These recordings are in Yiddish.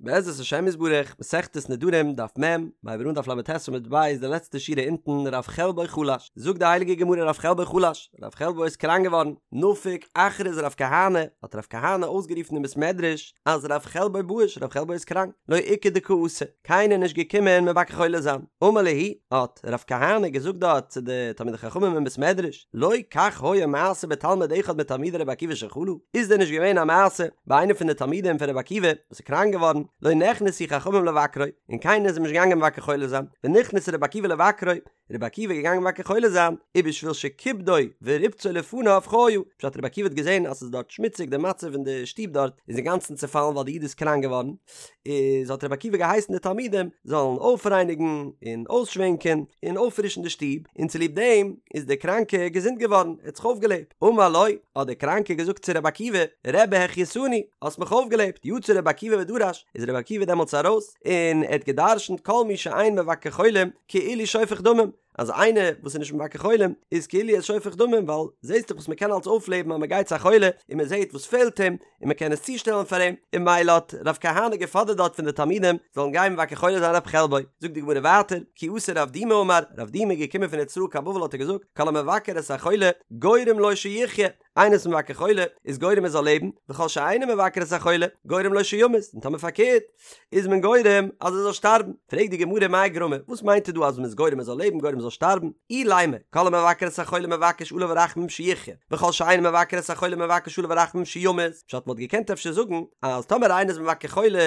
בעזרת השם יתברך, מסכת נדרים, דף מ', מ'הייבט אן דף ל"ט עמוד ב', די לעצטע שורה אונטן, רב חלבו חלש, זאגט די הייליגע גמרא רב חלבו חלש, רב חלבו איז קראנק געווארן, נפק אכריז רב כהנא, האט רב כהנא אויסגערופן אין בית מדרש, אז רב חלבו באיש, רב חלבו איז קראנק, לא איכא דקא אתי, קיינער נישט געקומען מבקר חולה זיין, אמר להו, האט רב כהנא געזאגט דארט צו די תלמידי חכמים אין בית מדרש, לא כך היה מעשה בתלמיד אחד מתלמידי רבי עקיבא שחלה, איז דען נישט געווען א מעשה ביי איינער פון די תלמידים פון רבי עקיבא וואס איז קראנק געווארן, לא נכנסו חכמים לבקרו, און קיינער איז אים נישט געגאנגען מבקר חולה זיין, ונכנס רבי עקיבא לבקרו, רבי עקיבא איז געגאנגען מבקר חולה זיין, ובשביל שכיבדו וריבצו לפניו חיה, פשט רבי עקיבא האט געזען אז ס'איז דארט שמוציג די מצב אין די שטוב דארט איז אינגאנצן צעפאלן ווייל די איד איז קראנק געווארן, איז האט רבי עקיבא געהייסן די תלמידים זאלן אויפרייניגן און אויסשווענקען און אויפפרישן די שטוב, און צוליב דעם איז דער קראנקער געזונט געווארן, ער האט זיך אויפגעלעבט. אמר לו, האט דער קראנקער געזאגט צו רבי עקיבא, רבי החייתני, האסט מיך אויפגעלעבט, יצא רבי עקיבא ודרש, איז רבי עקיבא דעמאלטס ארויס און ער האט גע'דרש'נט כל מי שאין מבקר חולים כאילו שופך דמים, אז איינער וואס איז נישט מבקר חולים איז כאילו ער איז שופך דמים ווייל זעהסט דאך וואס מען קען אלץ אויפלעבן אז מען גייט צו א חולה און מען זעהט וואס פעלט אים און מען קען עס צושטעלן פאר אים און ממילא האט רב כהנא געפאדערט דארט פון די תלמידים זאלן גיין מבקר חולה זיין רב חלבו זאגט די גמרא ווייטער כי אתא רב דימי אמר רב דימי איז געקומען פון ארץ ישראל קיין בבל האט ער געזאגט כל המבקר את החולה גורם לו שיחיה איינער איז מבקר חולה איז גורם ער זאל לעבן, וכל שאינו מבקר את החולה גורם לו שימות, און טאמער פארקערט איז מען גורם אז ער זאל שטארבן. פרעגט די גמרא מאי גרמא, וואס מיינט ער דא אז מען איז גורם ער זאל לעבן גורם ער זאל שטארבן? אילימא, כל המבקר את החולה מבקש עליו רחמים שיחיה, וכל שאינו מבקר את החולה מבקש עליו רחמים שימות, פשט מ'וואלט געקענט אפשר זאגן אז טאמער איינער איז מבקר חולה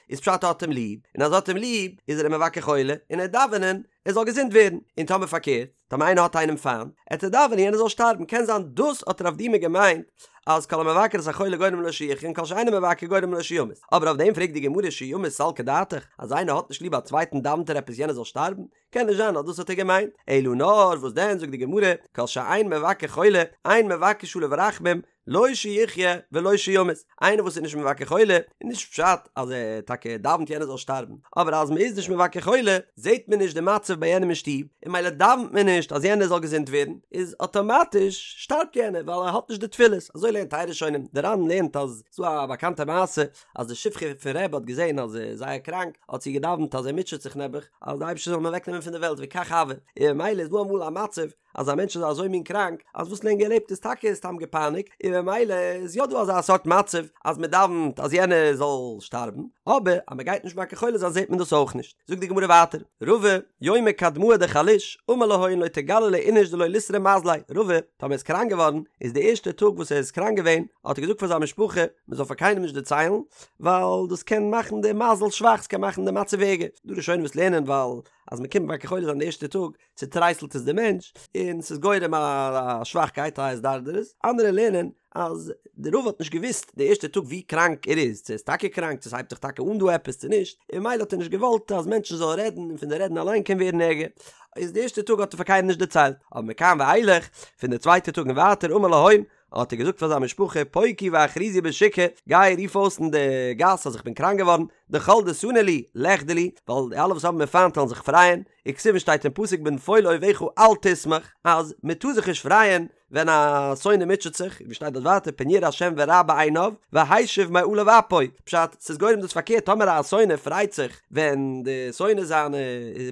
איז פשט ער האט אים ליב, און אז ער האט אים ליב איז ער אים מבקר חולה און ער דאווענען ער זאל געזונט ווערן, און טאמער פארקערט, טאמער איינער האט איינעם פיינט, עט ער דאווענען יענער זאל שטארבן, קען זיין דאס האט רב דימי געמיינט אז כל המבקר את החולה גורם לו שיחיה און כל שאינו מבקר גורם לו שימות, אבער אויף דעם פרעגט די גמרא שימות סלקא דעתך, אז איינער האט נישט ליב א צווייטן דאווענט ער עפעס יענער זאל שטארבן? קען נישט זיין אז דאס האט ער געמיינט, אלא נאר וואס דען זאגט די גמרא כל שאין מבקר חולה אין מבקש עליו רחמים לא שיחיה ולא שימות, איינער וואס איז נישט מבקר חולה, איז נישט פשט אז ער טאקע דאווענט יענער זאל שטארבן, אבער אז מען איז נישט מבקר חולה, זעט מען נישט די מצב ביי יענעם אין שטוב, און ממילא דאווענט מען נישט אז יענער זאל געזונט ווערן, איז אטאמאטיש שטארבט יענער ווייל ער האט נישט די תפילות, אזוי לערנט טייל ראשונים, די ר"ן לערנט אז ס'דא א באקאנטע מעשה אז די שפחה פון רבי האט געזען אז ער איז זייער קראנק, האט זי געדאווענט אז ער מוטשעט זיך נעבעך, אז די אייבערשטער זאל אים אוועקנעמען פון די וועלט וכך הוה, און ממילא איז דא אמאל א מצב אז א מענטש איז אזוי מין קראנק אז וואס לענגער ער לעבט איז טאקע סתם געפייניגט און ממילא איז יא דא אזא סארט מצב אז מען דאווענט אז יענער זאל שטארבן אבער אז מען גייט נישט מבקר חולה זיין זעט מען דאס אויך נישט. זאגט די גמרא ווייטער, רבא, יומא קדמאה דחליש, אמר להון לא תגלו לאיניש דלא ליתרע מזליה, רבא, טאמער איז קראנק געווארן, איז די ערשטע טאג וואס ער איז קראנק געווען, האט ער געזאגט פאר זיין משפחה, מען זאל פאר קיינעם נישט דערציילן, ווייל דאס קען מאכן די מזל שוואך, ס'קען מאכן די מצב ערגער. דא ראשונים וואס לערנען ווייל אז מען קומט מבקר חולה זיין די ערשטע טאג, צוטרייסלט עס די מענטש און ס'איז גורם א שוואכקייט א התדרדרות, אנדערע לערנען אז די רבא האט נישט געוואוסט די ערשטע טאג ווי קראנק ער איז, צו ער איז טאקע קראנק, צו ס'הייבט זיך טאקע אן דא עפעס צו נישט, און ממילא האט ער נישט געוואלט אז מענטשן זאלן רעדן און פון די רעדן אליין קען ווערן ערגער, איז די ערשטע טאג האט ער פאר קיינעם נישט דערציילט, אבער מכאן ואילך, פון די צווייטע טאג און ווייטער אמר להון, האט ער געזאגט פאר זיין משפחה פוקו ואכריזו בשוקא, גיי רוף אויס אין די גאס אז איך בין קראנק געווארן, דכל דסני לי, ליחדי לי, ווייל די אלע וואס האבן מיר פיינט וועלן זיך פרייען, וכתיב שטייט אין פסוק בנפול אויביך אל תשמח, אז מען טאר זיך נישט פרייען ווען א שונא מוטשעט זיך, ווי שטייט דארט ווייטער פן יראה השם ורע בעיניו, והשיב מעליו אפו, פשט, ס'איז גורם דאס פארקערט טאמער א שונא פרייט זיך ווען די שונא זיינע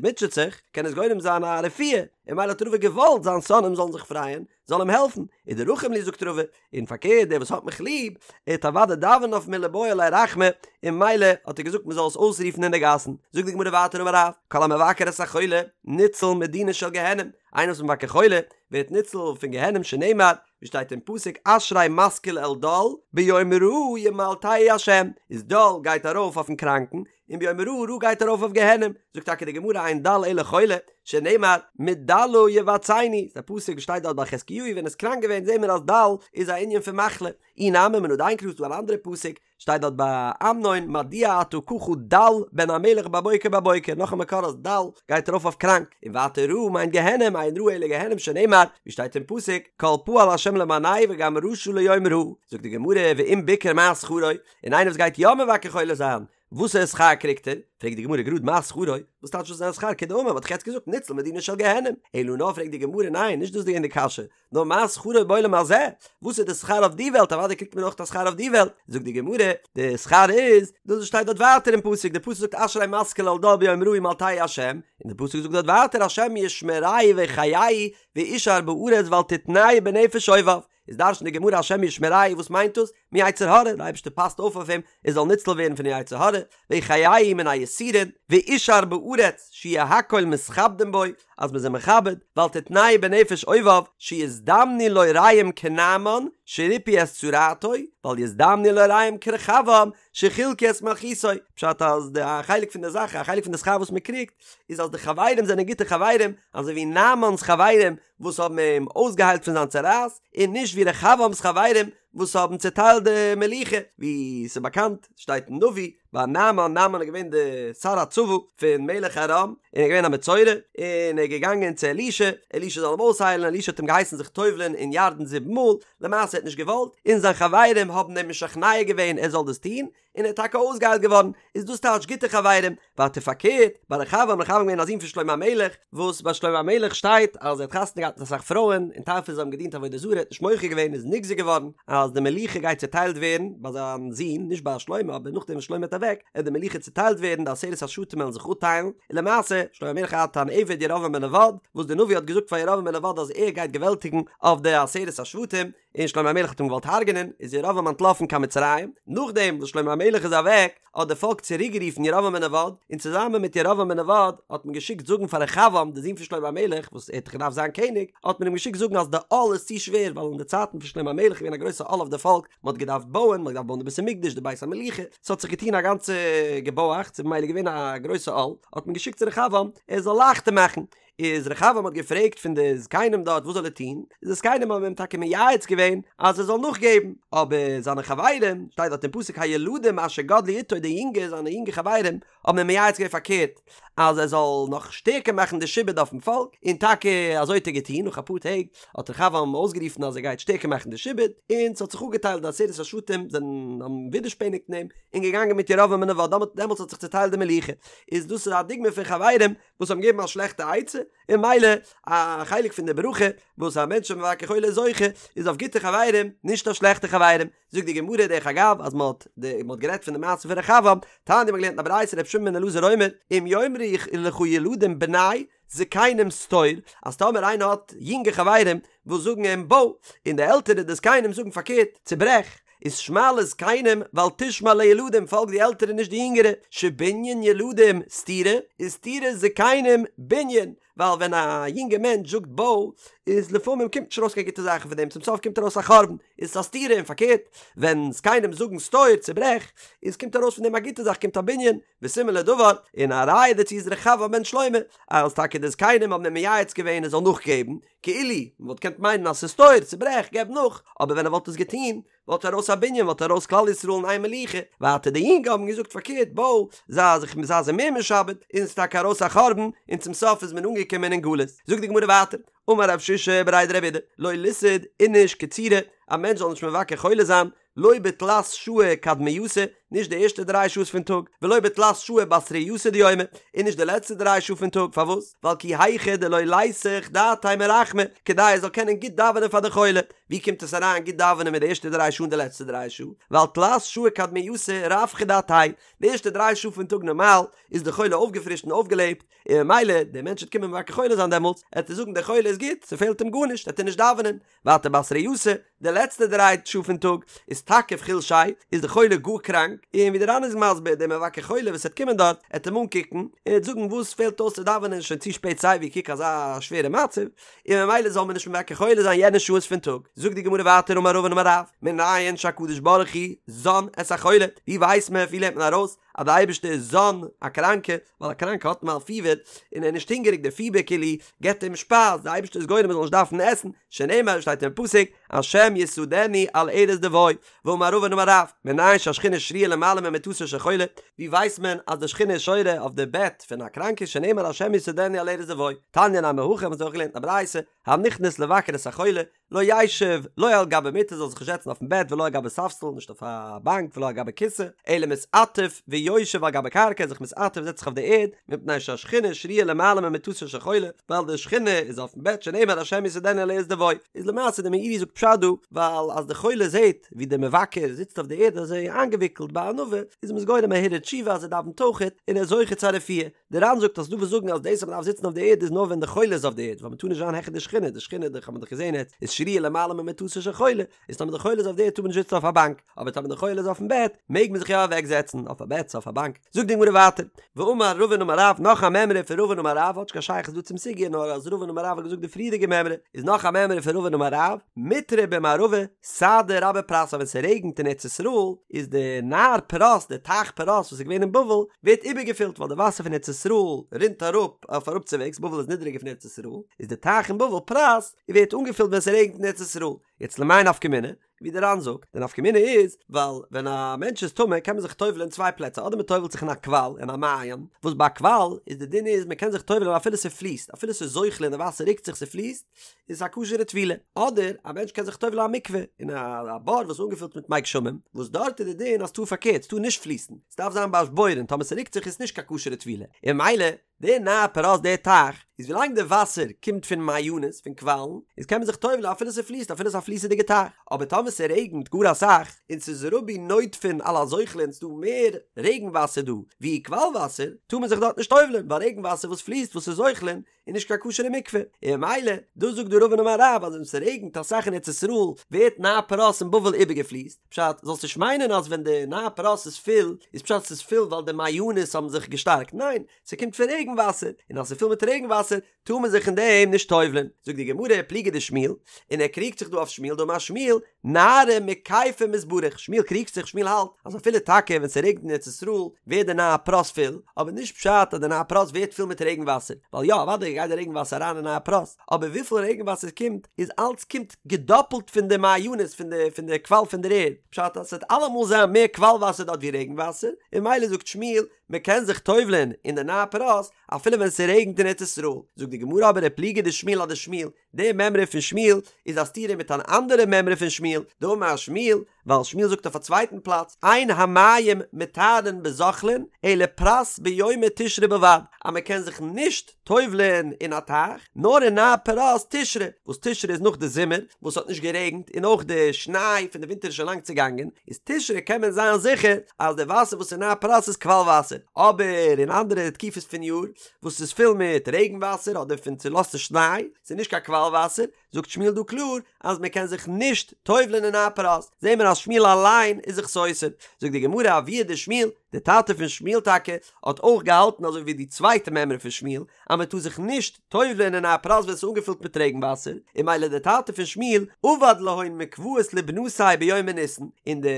מוטשעט זיך, קען עס גורם זיין א רפואה, און ממילא האט רבא געוואלט זיין שונאים זאלן זיך פרייען, זאל אים העלפן, ודרחים לי זאגט רבא, און פארקערט דער וואס האט מיך ליב, ער וועט אוודאי דאווענען אויף מיר ליבעי עלי רחמי, און ממילא האט ער געזאגט מען זאל עס אויסרופן אין די גאסן, זאגט די גמרא ווייטער אמר רב, כל המבקר את החולה, ניצול מדינה של גיהנום, איינער וואס איז מבקר חולה, ווערט ניצול פון גיהנום שנאמר, ווי שטייט אין פסוק אשרי משכיל אל דל, ביום רעה ימלטהו השם, איז דל גייט ארויף אויפן קראנקן, און ביום רעה רעה גייט ארויף אויף גיהנום, זאגט טאקע די גמרא אין דל אלא חולה, שנאמר מדלה יבצעני, ס'איז א פסוק וואס שטייט דארט ביי חזקיהו ווען ער איז קראנק געווען זעהן מיר אז דל איז א ענין פון מחלה, אי נמי מן הדין קרא ס'דא אן אנדערע פסוק שטייט דארט ביי אמנון מדוע אתה ככה דל בן המלך בבוקר בבוקר, נאך א מקור אז דל גייט ארויף אויף קראנק, און ווייטער רעה מיינט גיהנום אין רעה אלא גיהנום שנאמר ווי שטייט אין פסוק כל פעל השם למענהו וגם רשע ליום רעה, זאגט די גמרא ואם ביקר מה שכרו, און איינער וואס גייט יא מבקר חולה זיין. וואסערע שכר קריגט ער? פרעגט די גמרא גראד מה שכרו, וואס טייטש וואס איז זיין שכר כדאמר מ'האט דאך יעצט געזאגט ניצל מדינה של גיהנום, אלא נאר פרעגט די גמרא ניין נישט דאס איז געווען די קשיא, נאר מה שכרו בעולם הזה, וואס איז די שכר אויף די וועלט, אוודאי קריגט מען אויך א שכר אויף די וועלט, זאגט די גמרא, די שכר איז, דאס וואס שטייט דארט ווייטער אין פסוק, די פסוק זאגט אשרי משכיל אל דל ביום רעה ימלטהו השם, און די פסוק זאגט דארט ווייטער השם ישמרהו ויחייהו ואושר בארץ ואל תתנהו בנפש אויביו, איז דרש'נט די גמרא השם ישמרהו וואס מיינט דאס? מיצר הרע, די אייבערשטער פאסט אויף אויף אים ער זאל ניצל ווערן פון יצר הרע, ויחייהו מן היסורין, ואושר בארץ שיהו הכל מתכבדין בו, אז מ'איז אים מכבד, ואל תתנהו בנפש אויביו, שיזדמנו לו רעים כנעמן שריפאו את צרעתו, ואל יזדמנו לו רעים כרחבעם שחילקו את מלכותו, פשט אז די א חלק פון די זאך, א חלק פון די שכר וואס מ'קריגט, איז אז די חברים זענען גוטע חברים, אזוי ווי נעמן'ס חברים וואס האבן אים אויסגעהיילט פון זיין צרעת, און נישט ווי רחבעם'ס חברים וואס האבן צעטיילט די מלוכה, ווי ס'איז באקאנט, שטייט אין נביא, ביי נעמן, נעמן איז געווען די שר הצבא פון מלך ארם, און ער איז געווען א מצורע, און ער איז געגאנגען צו אלישע, אלישע זאל אים אויסהיילן, אלישע האט אים געהייסן זיך טובל'ען אין ירדן זיבן מאל, למעשה ער האט נישט געוואלט, און זיין חברים האבן אים משכנע געווען ער זאל דאס טון, און ער איז טאקע אויסגעהיילט געווארן, איז דאס טייטש גוטע חברים, ווייטער פארקערט, ביי רחבעם, רחבעם געווען א זון פון שלמה המלך, וואס ביי שלמה המלך שטייט אז ער האט חתונה געהאט מיט אסאך פרויען, און טייל פון זיי האבן געדינט עבודה זרה, ער האט נישט מוחה געווען איז נגזר געווארן אז די מלוכה גייט צוטיילט ווערן ביי זיין זון, נישט ביי שלמה, אבער נאכדעם וואס שלמה איז אוועק, עט די מלוכה צוטיילט ווערן, די עשרת השבטים וועלן זיך אפטיילן, און למעשה, שלמה המלך האט אן עבד ירבעם בן נבט, וואס דער נביא האט געזאגט פאר ירבעם בן נבט אז ער גייט געוועלטיגן אויף די עשרת השבטים, און שלמה המלך האט אים געוואלט הרג'נען, איז ירבעם אנטלאפן קיין מצרים, נאכדעם וואס שלמה המלך איז אוועק, האט די פאלק צוריק גערופן ירבעם בן נבט, און צוזאמען מיט ירבעם בן נבט האט מען געשיקט זאגן פאר רחבעם די זון פון שלמה המלך, וואס ער האט דאך געדארפט זיין קעניג, האט מען אים געשיקט זאגן אז די עול איז צו שווער, ווייל אין די צייטן פון שלמה המלך איז געווען א גרויסע עול אויף די פאלק, מען האט געדארפט בויען, מען האט געדארפט בויען די בית המקדש, די בית המלוכה, ס'האט זיך געטון א גאנצע געבויאכץ, איז ממילא געווען א גרויסע עול, האט מען געשיקט צו רחבעם ער זאל לייכטער מאכן, איז רחבעם האט געפרעגט פון די זקנים דארט וואס זאל ער טון, איז די זקנים האבן אים טאקע מייעץ געווען אז ער זאל נאכגעבן, אבער זיינע חברים, שטייט דארט אין פסוק הילדים אשר גדלו אתו די יונגע זיינע יונגע חברים האבן אים מייעץ געווען פארקערט אז ער זאל נאך שטערקער מאכן די שעבוד אויפן פאלק, און טאקע אזוי האט ער געטון, נאך אפאר טעג האט רחבעם אויסגערופן אז ער גייט שטערקער מאכן די שעבוד, און ס'האט זיך אפגעטיילט די עשרת השבטים זענען האבן ווידערשפעניגט אין אים, און געגאנגען מיט ירבעם בן נבט, דעמאלטס האט זיך צוטיילט די מלוכה, איז דאס איז א דוגמא פון חברים וואס האבן געגעבן א שלעכטע עצה, און ממילא א חלק פון די ברכה וואס א מענטש איז מבקר חולה איז זוכה, איז אויף גוטע חברים, נישט אויף שלעכטע חברים. זאגט די גמרא דרך אגב אז מען האט מען האט גערעדט פון די מעשה פון רחבעם, תניא מ'האט געלערנט אין א ברייתא רבי שמעון בן אלעזר אומר, אם יאמרו לך ילדים בנה זקנים סתור, אז טאמער איינער האט יונגע חברים וואס זאגן אים בוי, און די עלטערע די זקנים זאגן פארקערט, צוברעך, איז שמע לזקנים ואל תשמע לילדים פאלג די עלטערע נישט די יונגערע, שבנין ילדים סתירה וסתירת זקנים בנין, ווייל ווען א יונגע מענטש זאגט בוי איז לפעמים קומט נישט ארויס קיין גוטע זאכן פון דעם צום סוף קומט ארויס א חורבן איז עס א סתירה און פארקערט ווען זקנים זאגן סתור צוברעך איז קומט ארויס פון דעם א גוטע זאך קומט א בנין וסימן לדבר און א ראיה דערצו איז רחבעם בן שלמה אז טאקע די זקנים האבן אים מייעץ געווען ער זאל נאכגעבן כאילו מען וואלט געקענט מיינען אז ס'איז סתור, צוברעך, געב נאך, אבער ווען ער וואלט עס געטון, וואלט ארויס א בנין, וואלט ארויס כלל ישראל אין איין מלוכה, ווייטער די יונגע האבן געזאגט פארקערט, בוי, זיי זיך זיי זיי מער משעבד, און ס'איז טאקע ארויס א חורבן, און צום סוף איז מען אנגעקומען אין גלות. זאגט די גמרא ווייטער, אמר רב שישא בריה דרב אידי, לא ליסהי איניש קצירי, א מענטש זאל נישט מבקר חולה זיין, לא בתלת שעי קדמייתא, נישט די ערשטע דריי שעות פון טאג, ולא בתלת שעי בתרייתא דיומא, און נישט די לעצטע דריי שעה פון טאג, פארוואס? ווייל כי היכי דלא ליסח דעתיה מרחמי, כדי ער זאל קענען גוט דאווענען פאר די חולה. ווי קומט עס אריין גוט דאווענען מיט די ערשטע דריי שעה און די לעצטע דריי שעה? ווייל תלת שעי קדמייתא רווחא דעתיה, די ערשטע דריי שעה פון טאג נארמאל איז די חולה אויפגעפרישט און אויפגעלעבט, און ממילא דער מענטש וועט קומען מבקר חולה זיין דעמאלטס, עט ער זאגן דער חולה איז גוט, ס'פעלט אים גארנישט, עט ער נישט דאווענען, ווייטער בתרייתא, די לעצטע דריי שעה פון טאג, איז תקיף חולשיה, איז די חולה גאר קראנק, און ווי די ר"ן איז מסביר, דער מבקר חולה וואס וועט קומען דארט, עט אים אנקוקן, און עט זאגן וואס פעלט אויס צו דאווענען שוין צו שפעט סייווי קוק אזא שווערע מצב, און ממילא זאל מען נישט מבקר חולה זיין יענע שעות פון טאג. זאגט די גמרא ווייטער אמר רבין אמר רב, מנין שהקדוש ברוך הוא זן את החולה, ווי ווייסט מען, ווי לערנט מען ארויס אז די אייבערשטער איז זן א קראנקע, ווייל א קראנקע האט אמאל פיבער און ער איז נישט הונגעריג די פיבער כאילו געבט אים שפייז, די אייבערשטער איז גורם מען זאל נישט דארפן עסן, שנאמר שטייט אין פסוק השם יסעדנו על ערש דוי, ואמר רבין אמר רב, מנין שהשכינה שרויה למעלה ממיטתו של חולה, ווי ווייסט מען אז די שכינה איז שורה אויף די בעט פון א קראנקע שנאמר השם יסעדנו על ערש דוי, תניא נמי הכי האבן זיי אויך געלערנט אין א ברייתא, הנכנס לבקר את החולה, לא ישב לא על גבי מיטה זאל זיך נישט זעצן אויפן בעט ולא על גבי ספסל נישט אויף א באנק ולא על גבי כסא אלא מתעטף ויושב על גבי קרקע זיך מתעטף זעצט זיך אויף די ערד מפני שהשכינה שרויה למעלה ממיטתו של חולה ווייל די שכינה איז אויפן בעט שנאמר השם יסעדנו על ערש דוי איז למעשה די מאירי זאגט פשט דא ווייל אז די חולה זעט ווי די מבקר זיצט אויף די ערד אזוי איינגעוויקלט בענווה איז אים עס גורם א הרהור תשובה אז ער דאווענט אויכעט און ער איז זוכה צו א רפואה. די ר"ן זאגט אז ס'דא וואס זאגן אז דאס אז מ'דארף זיצן אויף די ערד איז נאר ווען די חולה איז אויף די ערד ווייל מ'טאר נישט זיין העכער די שכינה, די שכינה דאך האט מען דאך געזען יעצט איז שרויה למעלה ממיטתו של חולה, איז טאמער די חולה איז אויף די ערד טאר מען נישט זיצן אויף א באנק, אבער טאמער די חולה איז אויפן בעט מעג מען זיך יא אוועק זעצן אויף א בעט צו אויף א באנק. זאגט די גמרא ווייטער, ואמר רבין אמר רב, נאך א מימרא פון רבין אמר רב, האט נישט קיין שייכות דא צום סוגיא נאר אז רבין אמר רב האט געזאגט די פריערדיגע מימרא, איז נאך א מימרא פון רבין אמר רב, מיטרא במערבא, סהדא רבה פרת אז ווען ס'רעגנט אין ארץ ישראל איז די נהר פרת די טייך פרת וואס איז געווען אין בבל ווערט איבערגעפילט ווייל די וואסער פון ארץ ישראל רינט אראפ אויף אראפצווועגס בבל איז נידעריגער פון ארץ ישראל איז די טייך אין בבל פרת ווערט אנגעפילט ווען ס'רעגנט אין ארץ ישראל יעצט למאי נפקא מינה ווי די ר"ן זאגט די נפקא מינה איז ווייל ווען א מענטש איז טמא קען מען זיך טובל'ען אין צוויי פלעצער אדער מ'טובל'ט זיך אין א קוואל אין א מעיין וואס ביי א קוואל איז די דין איז מ'קען זיך טובל'ען אפילו ס'פליסט אפילו ס'איז זוחלין די וואסער רוקט זיך ס'פליסט איז א כשר'ע טבילה, אדער א מענטש קען זיך טובל'ן אין א מקווה, אין א בור וואס איז אנגעפילט מיט מי גשמים, וואס דארט איז די דין אז ס'טאר פארקערט, ס'טאר נישט פליסן, ס'דארף זיין באשבורן, טאמער ס'רוקט זיך איז נישט קיין כשר'ע טבילה, און ממילא די נהר פרת די טייך, איז ווילאנג די וואסער קומט פון מעיינות, פון קוואלן, איז קען מען זיך טובל'ן אפילו ס'פליסט, אפילו ס'איז א פליסעדיגע טייך, אבער טאמער ס'רעגנט גאר אסאך, און ס'איז רבו נוטפין על הזוחלין ס'דא מער רעגן וואסער דא ווי קוואל וואסער, טאר מען זיך דארט נישט טובל'ן, ווייל רעגן וואסער וואס פליסט וואס איז זוחלין, איז נישט קיין כשר'ע מקווה, און ממילא, דאס זאגט דא רבין אמר רב אז ווען ס'רעגנט אסאך אין ארץ ישראל ווערט נהר פרת אין בבל איבערגעפליסט, פשט, זאלסט נישט מיינען אז ווען די נהר פרת איז פול איז פשט ס'איז פול ווייל די מעיינות האבן זיך געשטארקט, ניין, ס'קומט פון רעגן וואסער, און אז ס'איז פול מיט רעגן וואסער טאר מען זיך אין דעם נישט טובל'ען, זאגט די גמרא פליגא דשמואל, און ער קריגט זיך דא אויף שמואל דאמר שמואל, נהרא מכיפיה מתברך, שמואל קריגט זיך, שמואל האלט אז אפילו טאקע ווען ס'רעגנט אין ארץ ישראל ווערט די נהר פרת פול, אבער נישט פשט אז די נהר פרת ווערט פול מיט רעגן וואסער, ווייל יא אוודאי גייט די רעגן וואסער אריין אין נהר פרת, אבער וויפיל רעגן וואסער ס'קומט איז אלץ קומט געדאפלט פון די מעיינות פון די פון די קוואל פון דער ערד, פשט אז ס'וועט אלעמאל זיין מער קוואל וואסער דארט ווי רעגן וואסער, און ממילא זאגט שמואל מ'קען זיך טובל'ען אין די נהר פרת אפילו ווען ס'רעגנט אין ארץ ישראל, זאגט די גמרא אבער ופליגא דשמואל אדשמואל, די מימרא פון שמואל איז א סתירה מיט אן אנדערע מימרא פון שמואל, דאמר שמואל, ווייל שמואל זאגט אויף א צווייטן פלאץ, אין המים מטהרין בזוחלין, אלא פרת ביומי תשרי בלבד, אז מען קען זיך נישט טובל'ען אין א טייך, נאר אין נהר פרת תשרי, וואס תשרי איז נאך די זומער, וואס האט נישט גערעגנט, און אויך די שניי פון די ווינטער איז שוין לאנג צעגאנגען, איז תשרי קען מען זיין זיכער אז די וואסער וואס אין נהר פרת איז קוואל וואסער, אבער אין אנדערע תקופות פון יאר, וואס איז פול מיט רעגן וואסער אדער פון צולאזטע שניי, ס'איז נישט קיין קוואל וואסער, זאגט שמואל דא קלאר אז מען קען זיך נישט טובל'ען אין נהר פרת, זעהן מיר אז שמואל אליין איז זיך סותר, זאגט די גמרא אבוה דשמואל, די טאטע פון שמואל טאקע האט אויך געהאלטן אזוי ווי די צווייטע מימרא פון שמואל אז מען טאר זיך נישט טובל'ען אין נהר פרת ווען ס'איז אנגעפילט מיט רעגן וואסער, און ממילא די טאטע פון שמואל עבד להון מקוואות לבנתיה ביומי ניסן, אין די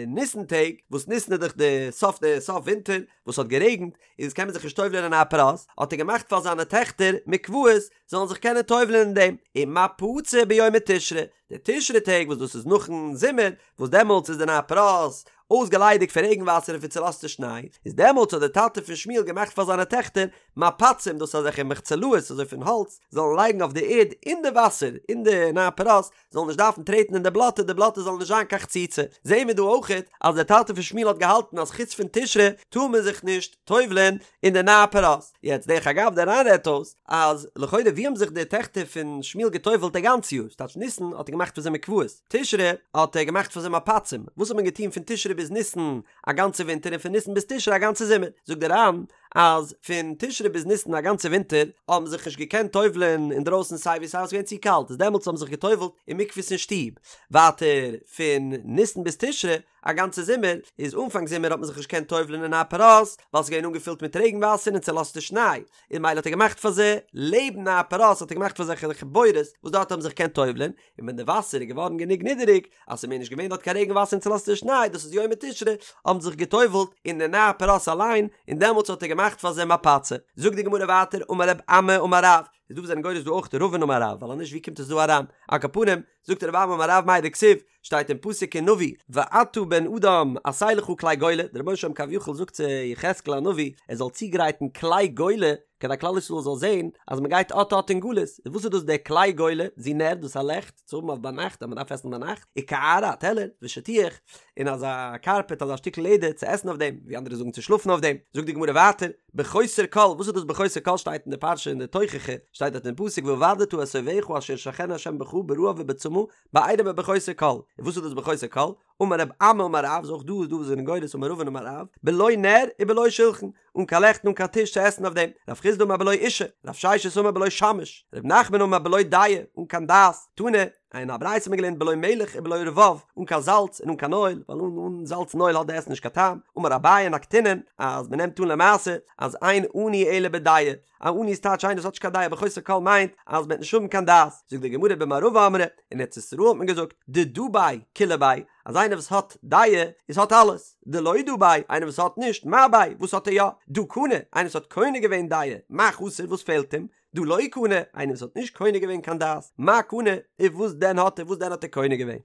ניסן טעג, וואס ניסן איז דאך די סוף די סוף ווינטער, וואס האט גערעגנט, איז קען מען זיך נישט טובל'ען אין נהר פרת, האט ער געמאכט פאר זיינע טעכטער מקוואות זאלן זיך קענען טובל'ען אין דעם, ומפצי ביומי תשרי, די תשרי טעג וואס דאס איז נאכן זומער, וואס דעמאלטס איז די נהר פרת אויסגעליידיגט פון רעגן וואסער און פון צולאזטע שניי, איז דעמאלטס האט דער טאטע פון שמואל געמאכט פאר זיינע טעכטער מפצים, דאס איז אזעלכע מחצלאות אזוי פון האלץ, זאלן לייגן אויף די ערד אין די וואסער אין די נהר פרת, זאלן נישט דארפן טרעטן אין די בלאטע, די בלאטע זאל נישט זיין קיין חציצה. זעהן מיר דא אויכעט אז דער טאטע פון שמואל האט געהאלטן אז חוץ פון תשרי טאר מען זיך נישט טובל'ען אין די נהר פרת. יעצט דרך אגב דער ר"ן רעדט אויס אז לכאורה ווי האבן זיך די טעכטער פון שמואל געטובל'ט א גאנץ יאר? ס'טייטש ניסן האט ער געמאכט פאר זיי מקוואות, תשרי האט ער געמאכט פאר זיי מפצים, וואס האט מען געטון פון תשרי ביז ניסן א גאנצע ווינטער און פון ניסן ביז תשרי א גאנצע זומער? זאגט דער ר"ן אז פון תשרי ביז ניסן א גאנצע ווינטער האבן זיך נישט געקענט טובל'ען אינדרויסן סיי ווי סיי ווייל ס'איז געווען צו קאלט איז דעמאלטס האבן זיך געטובל'ט אין מקוואות אין שטוב, ווייטער פון ניסן ביז תשרי א גאנצע זומער איז אנפאנג זומער האט מען זיך נישט געקענט טובל'ען אין נהר פרת ווייל ס'איז געווען אנגעפילט מיט רעגן וואסער און צולאזטע שניי און ממילא האט ער געמאכט פאר זיי לעבן נהר פרת האט ער געמאכט פאר זיי אזעלכע בורות וואס דארט האבן זיך געקענט טובל'ען און ווען די וואסער איז געווארן גענוג נידעריג אז ס'איז מער נישט געווען דארט קיין רעגן וואסער און צולאזטע שניי, דאס איז יומי תשרי, האבן זיך גע'טובל'ט אין די נהר פרת אליין, און דעמאלטס האט ער געמאכט פאר זיי מפצי. זאגט די גמרא ווייטער, אמר רב אמי אמר רב, איז דא וואס זענען גורס דא אויך רבין אמר רב, ווייל אז נישט ווי קומט עס דא אריין? על כל פנים, זאגט רב אמי אמר רב מאי דכתיב, שטייט אין פסוק אין נביא, ואתה בן אדם עשה לך כלי גולה, דער רבונו של עולם כביכול זאגט צו יחזקאל הנביא, ער זאל צוגרייטן כלי גולה, כדי כלל ישראל זאל זען אז מען גייט אט אט אין גלות, איז וואס איז דאס דער כלי גולה, זו נר, דאס איז א לעכט צו האבן אויף ביינאכט אז מען דארף עסן ביינאכט, וקערה א טעלער, ושטיח, און אזא קארפעט אזא שטיקל לעדער צו עסן אויף דעם, ווי אנדערע זאגן צו שלאפן אויף דעם, זאגט די גמרא ווייטער, בחוסר כל, וואס איז דאס בחוסר כל שטייט אין די פרשה אין די תוכחה, שטייט דארט אין פסוק והאבדת את אויביך אשר ישלחנו ה' בך ברעב ובצמא בעירום ובחוסר כל, און וואס איז דאס בחוסר כל? אמר רב אמי אמר רב, איז אויך דא איז דא וואס זענען גורס אמר רבין אמר רב, בלא נר ובלא שלחן, אן קיין לעכט און אן קיין טיש צו עסן אויף דעם, רב חסדא אמר בלא אישה, רב ששת אמר בלא שמש, רב נחמן אמר בלא דעה, אן קיין דעת, תנא, אין א ברייתא האט מען געלערנט בלא מלח ובלא רבב, אן קיין זאלץ און אן קיין אויל, ווייל אן אן זאלץ און אויל האט די עסן נישט קיין טעם, אמר אביי נקטינן, אז מען נעמט אן למעשה אז אין עני אלא בדעה, א עני איז טייטש איינער וואס האט נישט קיין דעה, בחוסר כל מיינט אז מען וועט נישט האבן קיין דעת, זאגט די גמרא במערבא אמרי, אין ארץ ישראל האט מען געזאגט, דדא ביה כולא ביה, אז איינער וואס האט דעה איז האט אלעס, דלא דא ביה, איינער וואס האט נישט, מה ביה, וואס האט ער יא, דהא קני, איינער וואס האט קונה געווען דעה, מה חסר, וואס פעלט אים, דהא לא קני, איינער וואס האט נישט קונה געווען קיין דעת, מה קני, און וואס דען האט ער, וואס דען האט ער קונה געווען?